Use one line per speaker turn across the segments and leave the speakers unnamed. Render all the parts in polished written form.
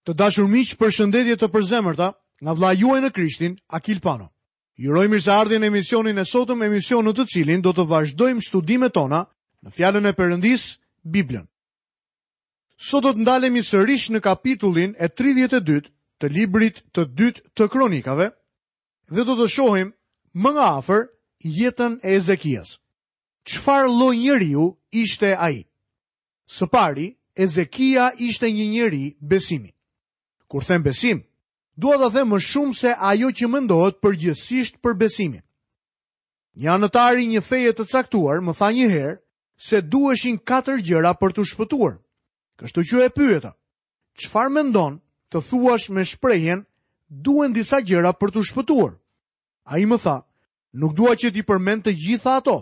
Të dashur miq, përshëndetje të përzemërta nga vëllai juaj në Krishtin, Akil Pano. Ju uroj mirëseardhjen në emisionin e sotëm, emision në të cilin do të vazhdojmë studimet tona në Fjalën e Perëndisë, Biblën. Sot do të ndalemi sërish në kapitullin e 32 të librit të dytë të Kronikave dhe do të shohim më nga afër jetën e Ezekias. Çfarë lloj njeriu ishte ai? Së pari, Ezekia ishte një njeri besimi. Kur them besim, dua të them më shumë se ajo që mendohet përgjithësisht për besimin. Një anëtar i një feje të caktuar më tha një herë se duheshin katër gjëra për t'u shpëtuar. Kështu që e pyeta, çfarë mendon të thuash me shprehjen duhen disa gjëra për t'u shpëtuar? Ai më tha, Nuk dua që t'i përmend të gjitha ato,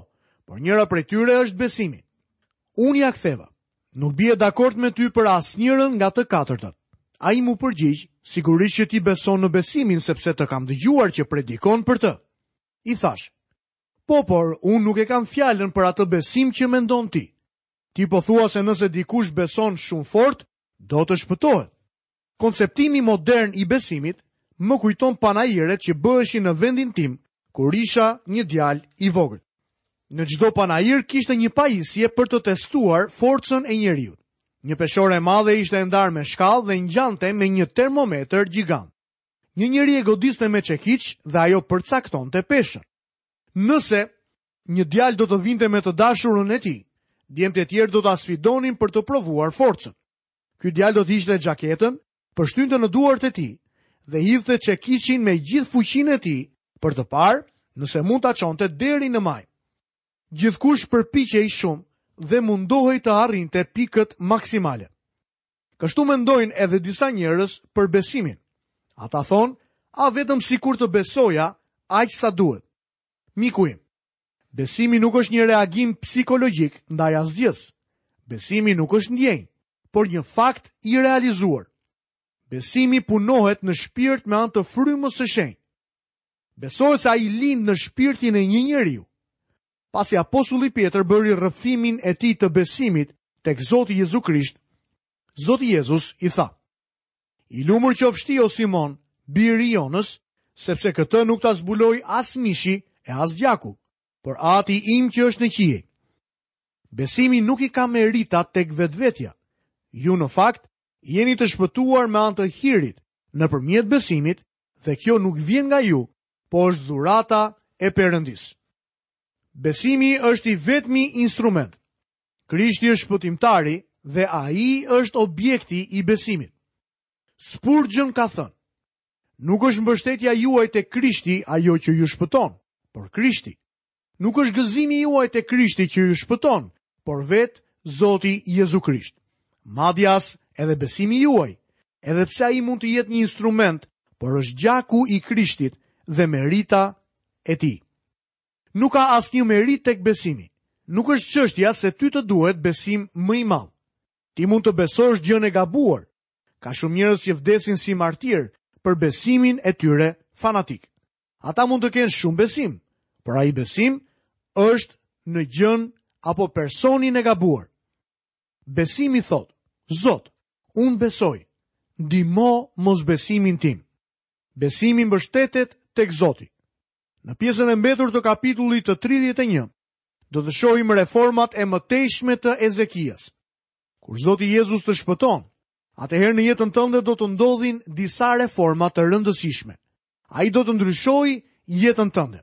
por njëra prej tyre është besimi. Unë ia ktheva. Nuk bie dakord me ty për asnjërën nga të katërtat. Ai m'u përgjigj, sigurisht që ti beson në besimin sepse të kam dëgjuar që predikon për të. I thashë, po, por unë nuk e kam fjalën për atë besim që mendon ti. Ti po thua se nëse dikush beson shumë fort, do të shpëtohet. Konceptimi modern i besimit më kujton panairet që bëheshin në vendin tim kur isha një djalë i vogël. Në çdo panair kishte një pajisje për të testuar forcën e njeriut. Një peshore e madhe ishte e ndarë me shkallë dhe ngjante me një termometër gjigant. Një njeri e godiste me çekiç dhe ajo përcaktonte peshën. Nëse një djalë do të vinte me të dashurën e tij, djemtë e tjerë do ta sfidonin për të provuar forcën. Ky djalë do të hiqte xhaketën, pështynte në duart e tij dhe hidhte çekiçin me gjithë fuqinë e tij për të parë nëse mund ta çonte deri në majë. Gjithkush përpiqej shumë dhe mundohej të arrinte pikët maksimale. Kështu mendojnë edhe disa njerëz për besimin. Ata thonë, a vetëm sikur të besoja aq sa duhet. Miku im, Besimi nuk është një reagim psikologjik ndaj asgjësë. Besimi nuk është ndjenjë, por një fakt i realizuar. Besimi punohet në shpirt me anë të frymës së shenjtë. Besohet se ai lind në shpirtin e një njeriu. Pasi apostulli Pjetër bëri rrëfimin e tij të besimit tek Zoti Jezu Krisht, Zoti Jezus i tha: I lumur qofsh ti o Simon, bir i Jonës, sepse këtë nuk ta zbuloi as mishi e as gjaku, por Ati im që është në qiej. Besimi nuk i ka meritat tek vetvetja. Ju në fakt jeni të shpëtuar me anë të hirit, nëpërmjet besimit, dhe kjo nuk vjen nga ju, po është dhurata e Perëndisë. Besimi është i vetmi instrument. Krishti është shpëtimtari dhe ai është objekti i besimit. Spurgeon ka thënë, nuk është mbështetja juaj te Krishti ajo që ju shpëton, por Krishti. Nuk është gëzimi juaj te Krishti që ju shpëton, por vetë Zoti Jezu Krisht. Madje as edhe besimi juaj, edhe pse ai mund të jetë një instrument, por është gjaku i Krishtit dhe merita e tij. Nuk ka asnjë meritë tek besimi. Nuk është çështja se ty të duhet besim më i madh. Ti mund të besosh gjënë e gabuar. Ka shumë njerëz që vdesin si martirë për besimin e tyre fanatik. Ata mund të kenë shumë besim, por ai besim është në gjënë apo personin e gabuar. Besimi thotë, Zot, unë besoj, ndihmo mosbesimin tim. Besimi mbështetet tek Zoti. Në pjesën e mbetur të kapitullit të 31, do të shohim reformat e mëtejshme të Ezekias. Kur Zoti Jezus të shpëton, atëherë në jetën tënde do të ndodhin disa reforma të rëndësishme. Ai do të ndryshojë jetën tënde.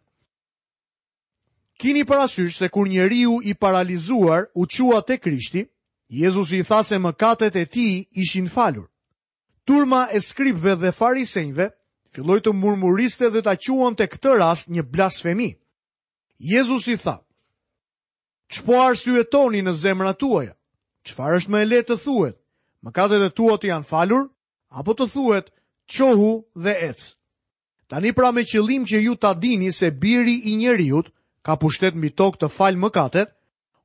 Kini parasysh se kur njeriu i paralizuar u çua te Krishti, Jezusi i tha se mëkatet e tij ishin falur. Turma e skribëve dhe farisenjve filloi të murmuriste dhe ta quante këtë rast një blasfemi. Jezusi tha: Ç'po arsyetoni në zemrat tuaja? Çfarë është më e lehtë të thuhet? Mëkatet e tua të janë falur apo të thuhet çohu dhe ec? Tani pra me qëllim që ju ta dini se biri i njeriut ka pushtet mbi tokë të falë mëkatet,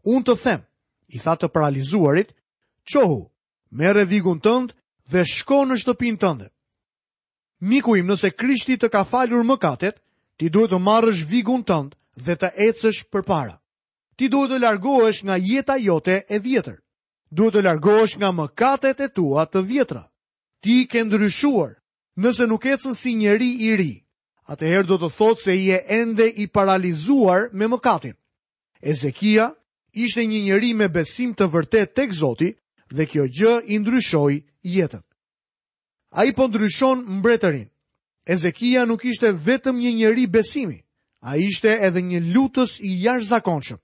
unë të them, i tha të paralizuarit, çohu, Merre vigun tënd dhe shko në shtëpinë tënde. Miku im, nëse Krishti të ka falur mëkatet, ti duhet të marrësh vigun tënd dhe të ecësh përpara. Ti duhet të largohesh nga jeta jote e vjetër. Duhet të largohesh nga mëkatet e tua të vjetra. Ti ke ndryshuar, nëse nuk ecën si njeri i ri, atëherë do të thotë se je ende i paralizuar me mëkatin. Ezekia ishte një njeri me besim të vërtetë tek Zoti dhe kjo gjë i ndryshoi jetën. Ai po ndryshon mbretërinë. Ezekia nuk ishte vetëm një njeri besimi, ai ishte edhe një lutës i jashtëzakonshëm.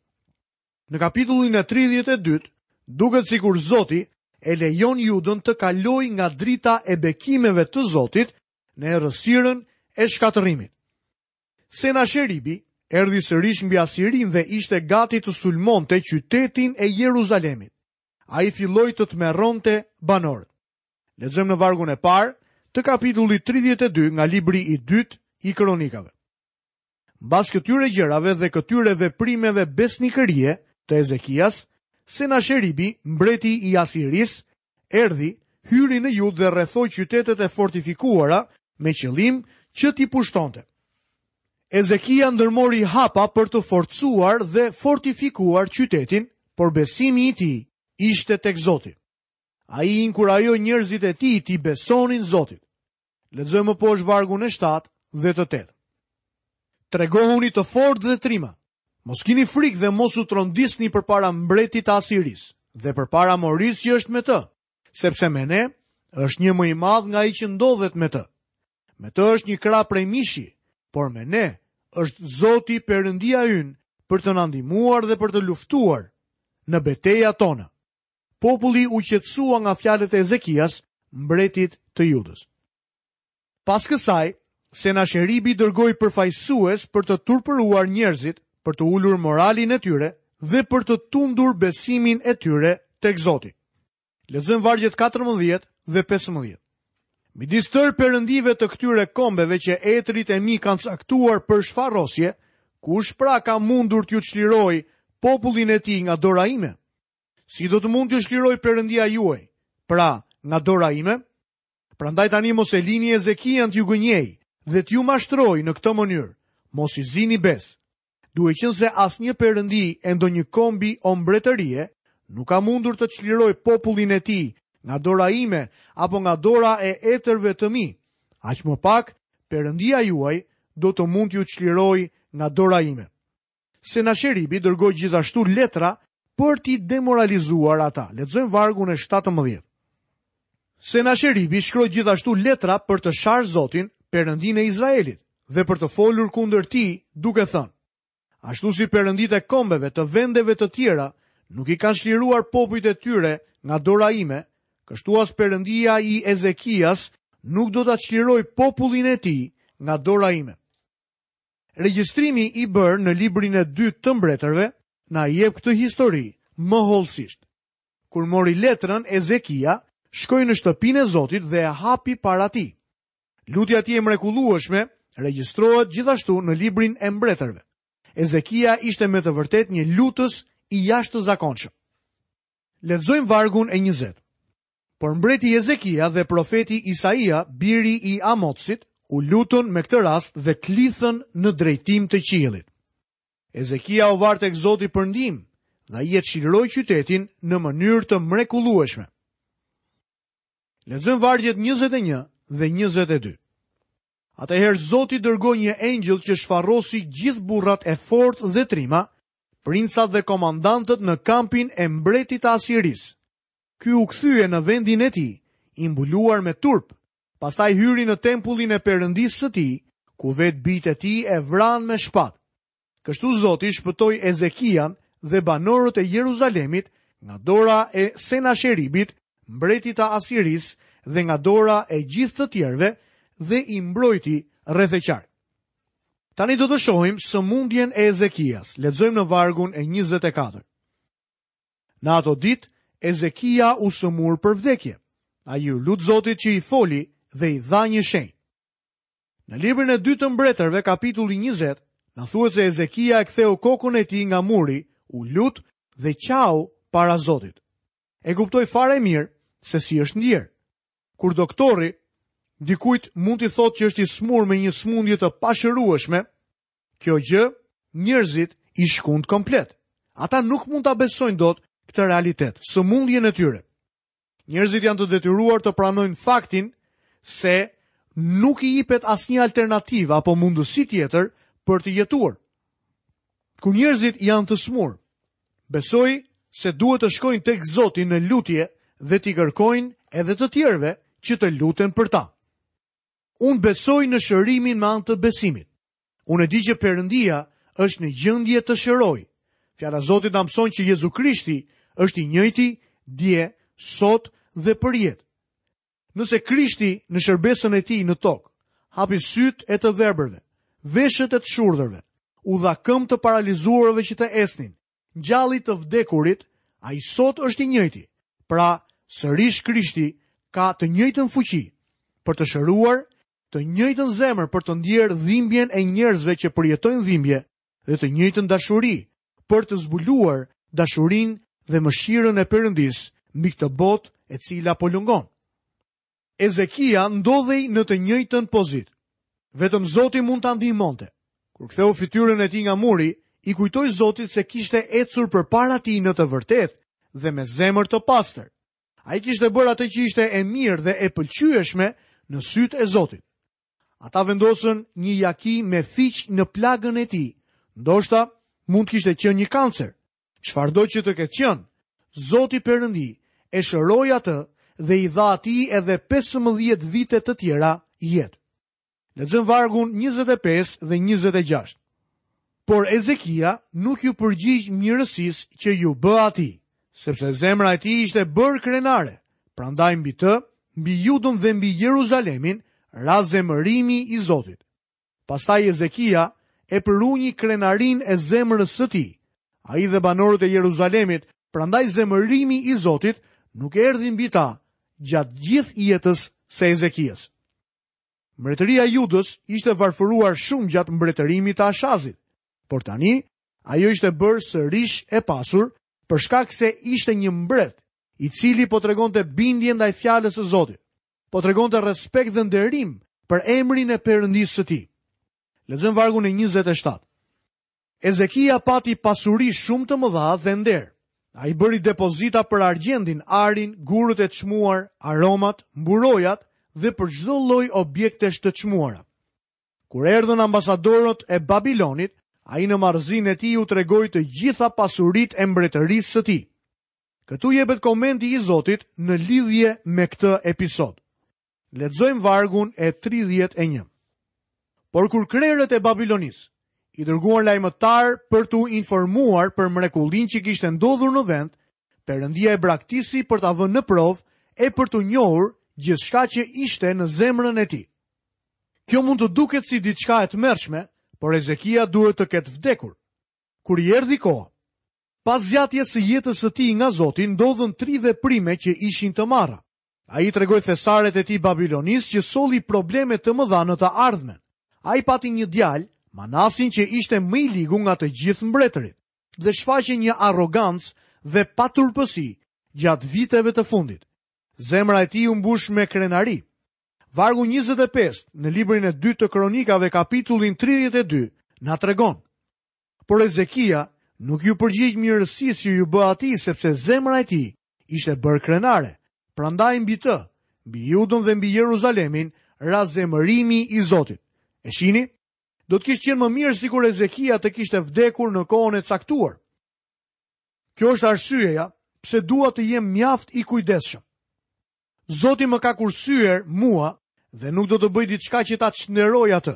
Në kapitullin e 32, duket sikur Zoti e lejon Judën të kalojë nga drita e bekimeve të Zotit në errësirën e shkatërrimit. Senasheribi erdhi sërish mbi Asirinë dhe ishte gati të sulmonte qytetin e Jeruzalemit. Ai filloi të tmerronte banorët. Lexojmë në vargun e parë të kapitullit 32 nga libri i dytë i Kronikave. Mbas këtyre gjërave dhe këtyre veprimeve besnikërie të Ezekias, Senasheribi, mbreti i Asirisë, erdhi, hyri në Judë dhe rrethoi qytetet e fortifikuara me qëllim që t'i pushtonte. Ezekia ndërmori hapa për të forcuar dhe fortifikuar qytetin, por besimi i tij ishte tek Zoti. Ai inkurajoi njerëzit e tij t'i besonin Zotit. Lexojmë më poshtë vargun e 7 dhe të 8. Tregohuni të fortë dhe trima. Mos kini frikë dhe mos u trondisni përpara mbretit të Asirisë dhe përpara morisë që është me të, sepse me ne është një më i madh nga ai që ndodhet me të. Me të është një krah prej mishi, por me ne është Zoti Perëndia ynë për të na ndihmuar dhe për të luftuar në betejat tona. Populli u qetësua nga fjalët e Ezekias, mbretit të Judës. Pas kësaj, Senasheribi dërgoi përfaqësues për të turpëruar njerëzit, për të ulur moralin e tyre dhe për të tundur besimin e tyre tek Zoti. Lexojmë vargjet 14 dhe 15. Midis tërë perëndive të këtyre kombeve që etërit e mi kanë caktuar për shfarosje, kush pra ka mundur t'ju çlirojë popullin e tij nga dora ime? Si do të mund t'ju çlirojë Perëndia juaj, pra nga dora ime? Prandaj tani mos e lini Ezekian t'ju gënjejë dhe t'ju mashtrojë në këtë mënyrë. Mos i zini besë. Duke qenë se asnjë perëndi e ndonjë kombi o mbretërie nuk ka mundur të çlirojë popullin e tij nga dora ime apo nga dora e etërve të mi, aq më pak Perëndia juaj do të mund t'ju çlirojë nga dora ime. Senasheribi dërgoi gjithashtu letra për t'i demoralizuar ata. Lexojmë vargun e 17. Senasheribi shkroi gjithashtu letra për të sharë Zotin, Perëndinë e Izraelit, dhe për të folur kundër tij, duke thënë: Ashtu si perënditë e kombeve të vendeve të tjera nuk i kanë çliruar popujt e tyre nga dora ime, kështu as Perëndia i Ezekias nuk do ta çlirojë popullin e tij nga dora ime. Regjistrimi i bërë në librin e dytë të mbretërve na jep këtë histori më hollësisht. Kur mori letrën, Ezekia shkoi në shtëpinë e Zotit dhe e hapi para tij. Lutja e tij e mrekullueshme regjistrohet gjithashtu në librin e mbretërve. Ezekia ishte me të vërtetë një lutës i jashtëzakonshëm. Lexojmë vargun e 20. Por mbreti Ezekia dhe profeti Isaia, biri i Amotsit, u lutën me këtë rast dhe klithën në drejtim të qiellit. Ezekia u var tek Zoti për ndihmë dhe ai e çliroi qytetin në mënyrë të mrekullueshme. Lexojmë vargjet 21 dhe 22. Atëherë Zoti dërgoi një engjëll që shfarrosi gjithë burrat e fortë dhe trima, princat dhe komandantët në kampin e mbretit të Asirisë. Ky u kthye në vendin e tij, i mbuluar me turp. Pastaj hyri në tempullin e Perëndisë së tij, ku vetë bijtë e tij e vranë me shpatë. Kështu Zoti shpëtoi Ezekian dhe banorët e Jeruzalemit nga dora e Senasheribit, mbretit të Asirisë dhe nga dora e gjithë të tjerëve dhe i mbrojti rreth e qark. Tani do të shohim sëmundjen e Ezekias. Lexojmë në vargun e 24. Në ato ditë, Ezekia u sëmur për vdekje. Ai iu lut Zotit që i foli dhe i dha një shenjë. Në librin e dytë të mbretërve, kapitulli 20, na thuhet se Ezekia e ktheu kokën e tij nga muri, u lut dhe qau para Zotit. E kuptoj fare mirë se si është ndier. Kur doktori dikujt mund t'i thotë që është i sëmurë me një sëmundje të pashërueshme, Kjo gjë njerëzit i shkund komplet. Ata nuk mund ta besojnë dot këtë realitet, sëmundjen e tyre. Njerëzit janë të detyruar të pranojnë faktin se nuk i jepet asnjë alternativë apo mundësi tjetër për të jetuar. Kur njerëzit janë të sëmurë, besoj se duhet të shkojnë tek Zoti në lutje dhe t'i kërkojnë edhe të tjerëve që të luten për ta. Unë besoj në shërimin me anë të besimit. Unë e di që Perëndia është në gjendje të shërojë. Fjala e Zotit na mëson që Jezu Krishti është i njëjti dje, sot dhe përjetë. Nëse Krishti në shërbesën e tij në tokë hapi sytë e të verbërve, veshët e të shurdhërve, u dha këmbë të paralizuarve që të ecnin, ngjalli të vdekurit, ai sot është i njëjti. Pra, sërish Krishti ka të njëjtën fuqi për të shëruar të njëjtën zemër për të ndjerë dhimbjen e njerëzve që përjetojnë dhimbje dhe të njëjtën dashuri për të zbuluar dashurinë dhe mëshirën e Perëndisë mbi këtë botë e cila po lëngon. Ezekia ndodhej në të njëjtën pozitë. Vetëm Zoti mund ta ndihmonte. Kur ktheu fytyrën e tij nga muri, i kujtoi Zotit se kishte ecur përpara tij në të vërtetë dhe me zemër të pastër. Ai kishte bërë atë që ishte e mirë dhe e pëlqyeshme në sytë e Zotit. Ata vendosën një jaki me fiq në plagën e tij. Ndoshta mund të kishte qenë një kancer. Çfarëdo që të ketë qenë, Zoti Perëndi e shëroi atë dhe i dha atij edhe 15 vite të tjera jetë. Lexojmë vargun 25 dhe 26. Por Ezekia nuk iu përgjigj mirësisë që iu bë atij, sepse zemra e tij ishte bërë krenare. Prandaj mbi të, mbi Judën dhe mbi Jeruzalemin, ra zemërimi i Zotit. Pastaj Ezekia e përunji krenarinë e zemrës së tij. Ai dhe banorët e Jeruzalemit, prandaj zemërimi i Zotit nuk erdhi mbi ta gjatë gjithë jetës së Ezekias. Mbretëria e Judës ishte varfëruar shumë gjatë mbretërimit të Ashazit, por tani ajo ishte bërë sërish e pasur për shkak se ishte një mbret i cili po tregonte bindje ndaj fjalës së Zotit. Po tregonte respekt dhe nderim për emrin e Perëndisë së tij. Lexojmë vargun e 27. Ezekia pati pasuri shumë të mëdha dhe nder. Ai bëri depozita për argjendin, arin, gurët e çmuar, aromat, mburojat dhe për çdo lloj objektesh të çmuara. Kur erdhën ambasadorët e Babilonit, ai në marrëzinë e tij u tregoi të gjitha pasuritë e mbretërisë së tij. Këtu jepet komenti i Zotit në lidhje me këtë episod. Lexojmë vargun e 31. Por kur krerët e Babilonisë i dërguan lajmëtarë për t'u informuar për mrekullinë që kishte ndodhur në vend, Perëndia e braktisi për ta vënë në provë e për të njohur gjithçka që ishte në zemrën e tij. Kjo mund të duket si diçka e tmerrshme, por Ezekia duhet të ketë vdekur. Kur i erdhi koha, pas zgjatjes së jetës së tij nga Zoti ndodhën tri veprime që ishin të marra. Ai i tregoi thesaret e tij Babilonisë që solli probleme të mëdha në të ardhmen. Ai pati një djalë, Manasin që ishte më i ligu nga të gjithë mbretërit dhe shfaqi një arrogancë dhe paturpësi gjatë viteve të fundit. Zemra e tij u mbush me krenari. Vargu 25 në librin e dytë të Kronikave kapitullin 32 na tregon. Por Ezekia nuk iu përgjigj mirësisë që iu bë atij sepse zemra e tij ishte bërë krenare. Prandaj mbi të, mbi Judën dhe mbi Jeruzalemin ra zemërimi i Zotit. E shihni? Do të kishte qenë më mirë sikur Ezekia të kishte vdekur në kohën e caktuar. Kjo është arsyeja pse dua të jem mjaft i kujdesshëm. Zoti më ka kursyer mua dhe nuk do të bëj diçka që ta çnderoj atë.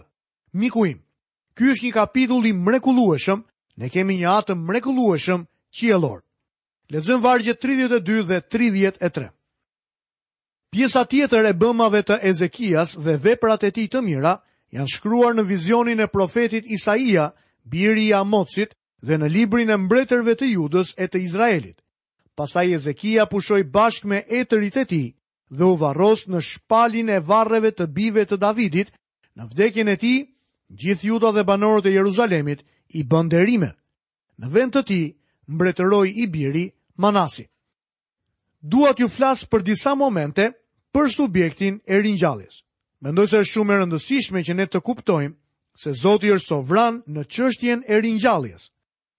Miku im, Ky është një kapitull i mrekullueshëm, ne kemi një atë të mrekullueshëm qiellor. Lexojmë vargjet 32 dhe 33. Pjesa tjetër e bëmave të Ezekias dhe veprat e tij të mira janë shkruar në vizionin e profetit Isaia, biri i Amotsit, dhe në librin e mbretërve të Judës e të Izraelit. Pastaj Ezekia pushoi bashkë me etërit e tij dhe u varros në shpalin e varreve të bijve të Davidit Në vdekjen e tij, gjithë Juda dhe banorët e Jeruzalemit i bënë nderime. Në vend të tij, mbretëroi i biri Manasi. Dua t'ju flas për disa momente për subjektin e ringjalljes. Mendoj se është shumë e rëndësishme që ne të kuptojmë se Zoti është sovran në çështjen e ringjalljes.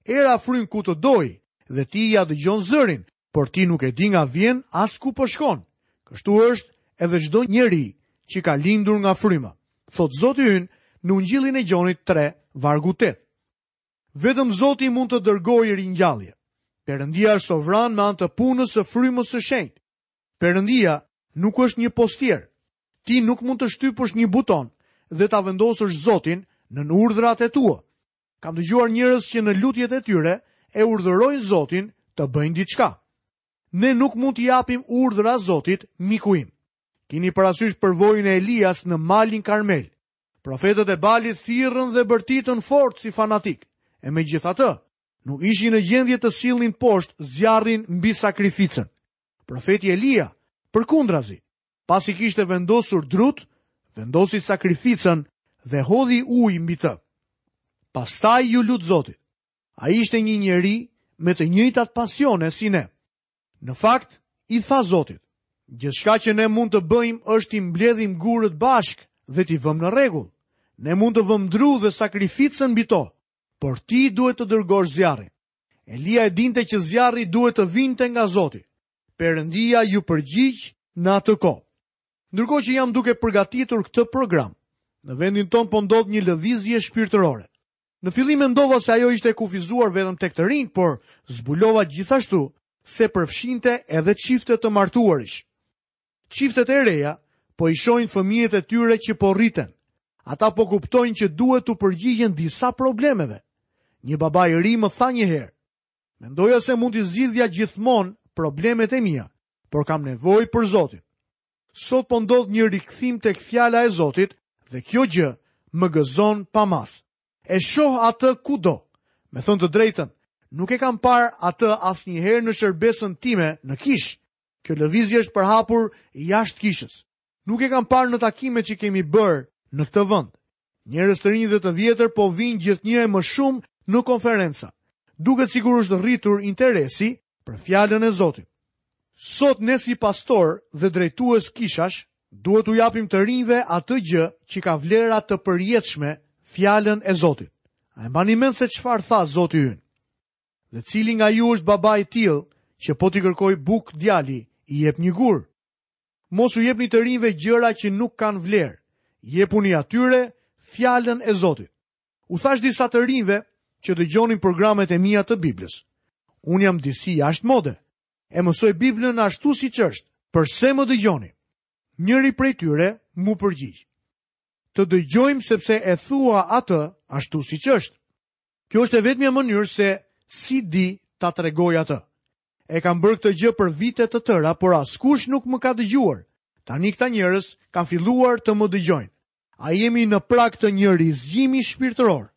Era fryn ku të dojë dhe ti ia dëgjon zërin, por ti nuk e di nga vjen as ku po shkon. Kështu është edhe çdo njeri. që ka lindur nga fryma. Thotë Zoti ynë në Ungjillin e Gjonit 3, vargu 8. Vetëm Zoti mund të dërgojë ringjallje. Perëndia është sovran me anë të punës së frymës së shenjtë. Perëndia nuk është një postier. Ti nuk mund të shtypësh një buton dhe ta vendosësh Zotin nën urdhrat e tua. Kam dëgjuar njerëz që në lutjet e tyre e urdhërojnë Zotin të bëjnë diçka. Ne nuk mund t'i japim urdhra Zotit, miku im. Kini parasysh përvojën e Elias në malin Karmel. Profetët e Balit thirrën dhe bërtitën fort si fanatikë. E megjithatë, nuk ishin në gjendje të sillnin poshtë zjarrin mbi sakrificën. Profeti Elia, përkundrazi, pasi kishte vendosur drutë, vendosi sakrificën dhe hodhi ujë mbi të. Pastaj iu lut Zotit. Ai ishte një njeri me të njëjtat pasione si ne. Në fakt, i tha Zotit, gjithçka që ne mund të bëjmë është t'i mbledhim gurët bashkë dhe t'i vëmë në rregull. Ne mund të vëmë dru dhe sakrificën mbi to, por ti duhet të dërgosh zjarrin. Elia e dinte që zjarri duhet të vinte nga Zoti. Perëndia iu përgjigj në atë kohë. Ndërkohë që jam duke përgatitur këtë program, në vendin tonë po ndodh një lëvizje shpirtërore. Në fillim mendova se ajo ishte e kufizuar vetëm tek të rinjtë, por zbulova gjithashtu se përfshinte edhe çifte të martuarish. Çiftet e reja po i shohin fëmijët e tyre që po rriten. Ata po kuptojnë që duhet t'u përgjigjen disa problemeve. Një baba i ri më tha një herë, mendoja se mund t'i zgjidhja gjithmonë problemet e mia, por kam nevojë për Zotin. Sot po ndodh një rikthim tek fjala e Zotit dhe kjo gjë më gëzon pa masë. E shoh atë kudo. Me thënë të drejtën, nuk e kam parë atë asnjëherë në shërbesën time në kishë. Kjo lëvizje është përhapur jashtë kishës. Nuk e kam parë në takimet që kemi bërë në këtë vend. Njerëz të rinj dhe të vjetër po vijnë gjithnjë e më shumë në konferenca. Duket sikur është rritur interesi për fjalën e Zotit. Sot ne si pastorë dhe drejtues kishash duhet t'u japim të rinjve atë gjë që ka vlera të përjetshme, fjalën e Zotit. A e mbani mend se çfarë tha Zoti ynë? Dhe cili nga ju është baba i tillë që po t'i kërkojë bukë djali, i jep një gur? Mos u jepni të rinjve gjëra që nuk kanë vlerë. Jepuni atyre fjalën e Zotit. U thashë disa të rinjve që dëgjonin programet e mia të Biblës. Unë jam disi jashtë mode. E mësoj Biblën ashtu siç është. Përse më dëgjoni? Njëri prej tyre m'u përgjigj. Të dëgjojmë sepse e thua atë ashtu siç është. Kjo është e vetmja mënyrë se si di ta tregoj atë. E kam bërë këtë gjë për vite të tëra, por askush nuk më ka dëgjuar. Tani këta njerëz kanë filluar të më dëgjojnë. A jemi në prag të një rizgjimi shpirtëror?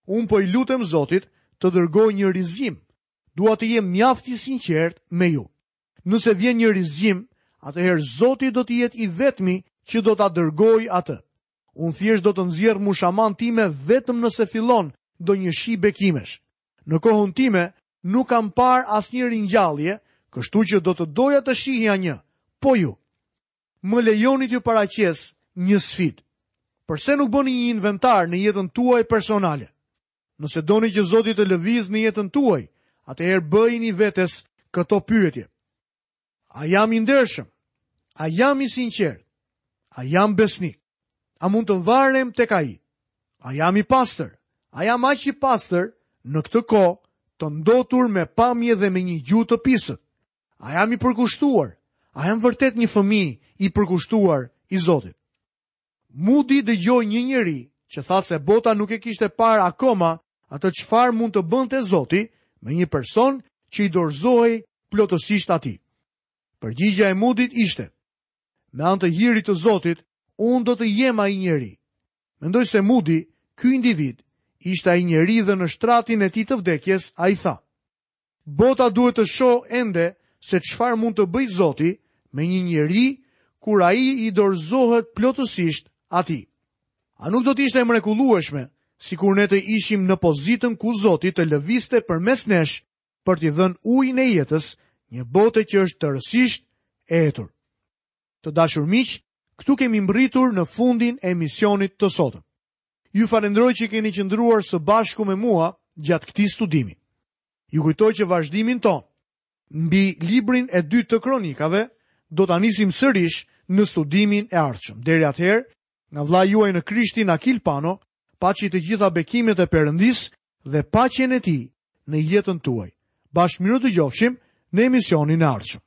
Unë po i lutem Zotit të dërgojë një rizgjim. Dua të jem mjaft i sinqertë me ju. Nëse vjen një rizgjim, atëherë Zoti do të jetë i vetmi që do ta dërgojë atë. Unë thjesht do të nxjerr mushamanë time vetëm nëse fillon ndonjë shi bekimesh. Në kohën time nuk kam parë asnjë ringjallje, kështu që do të doja të shihja një. Po ju. Më lejoni t'ju paraqes një sfidë. Përse nuk bëni një inventar në jetën tuaj personale? Nëse doni që Zoti të lëvizë në jetën tuaj, atëherë bëjini vetes këto pyetje. A jam i ndershëm? A jam i sinqertë? A jam besnik? A mund të varem tek ai? A jam i pastër? A jam aq i pastër në këtë kohë të ndotur me pamje dhe me një gjuhë të pisët? A jam i përkushtuar? A jam vërtet një fëmijë i përkushtuar i Zotit? Moody dëgjoi një njeri që tha se bota nuk e kishte parë akoma atë çfarë mund të bënte Zoti me një person që i dorëzohej plotësisht atij. Përgjigja e Moodyt ishte: Me anë të hirit të Zotit, unë do të jem ai njeri. Mendoj se Moody, ky individ, ishte ai njeri dhe në shtratin e tij të vdekjes ai tha: Bota duhet të shohë ende se çfarë mund të bëjë Zoti me një njeri kur ai i dorëzohet plotësisht atij. A nuk do të ishte e mrekullueshme sikur ne të ishim në pozitën ku Zoti të lëvizte përmes nesh për t'i dhënë ujin e jetës një bote që është tërësisht e etur. Të dashur miq, këtu kemi mbërritur në fundin e emisionit të sotëm. Ju falënderoj që keni qëndruar së bashku me mua gjatë këtij studimi. Ju kujtoj që vazhdimin tonë mbi librin e dytë të kronikave do ta nisim sërish në studimin e ardhshëm. Deri atëherë, nga vëllai juaj në Krishtin Akil Pano, paçi të gjitha bekimet e Perëndisë dhe paqen e tij në jetën tuaj. Bashkë mirudëgjofshim në emisionin e ardhshëm.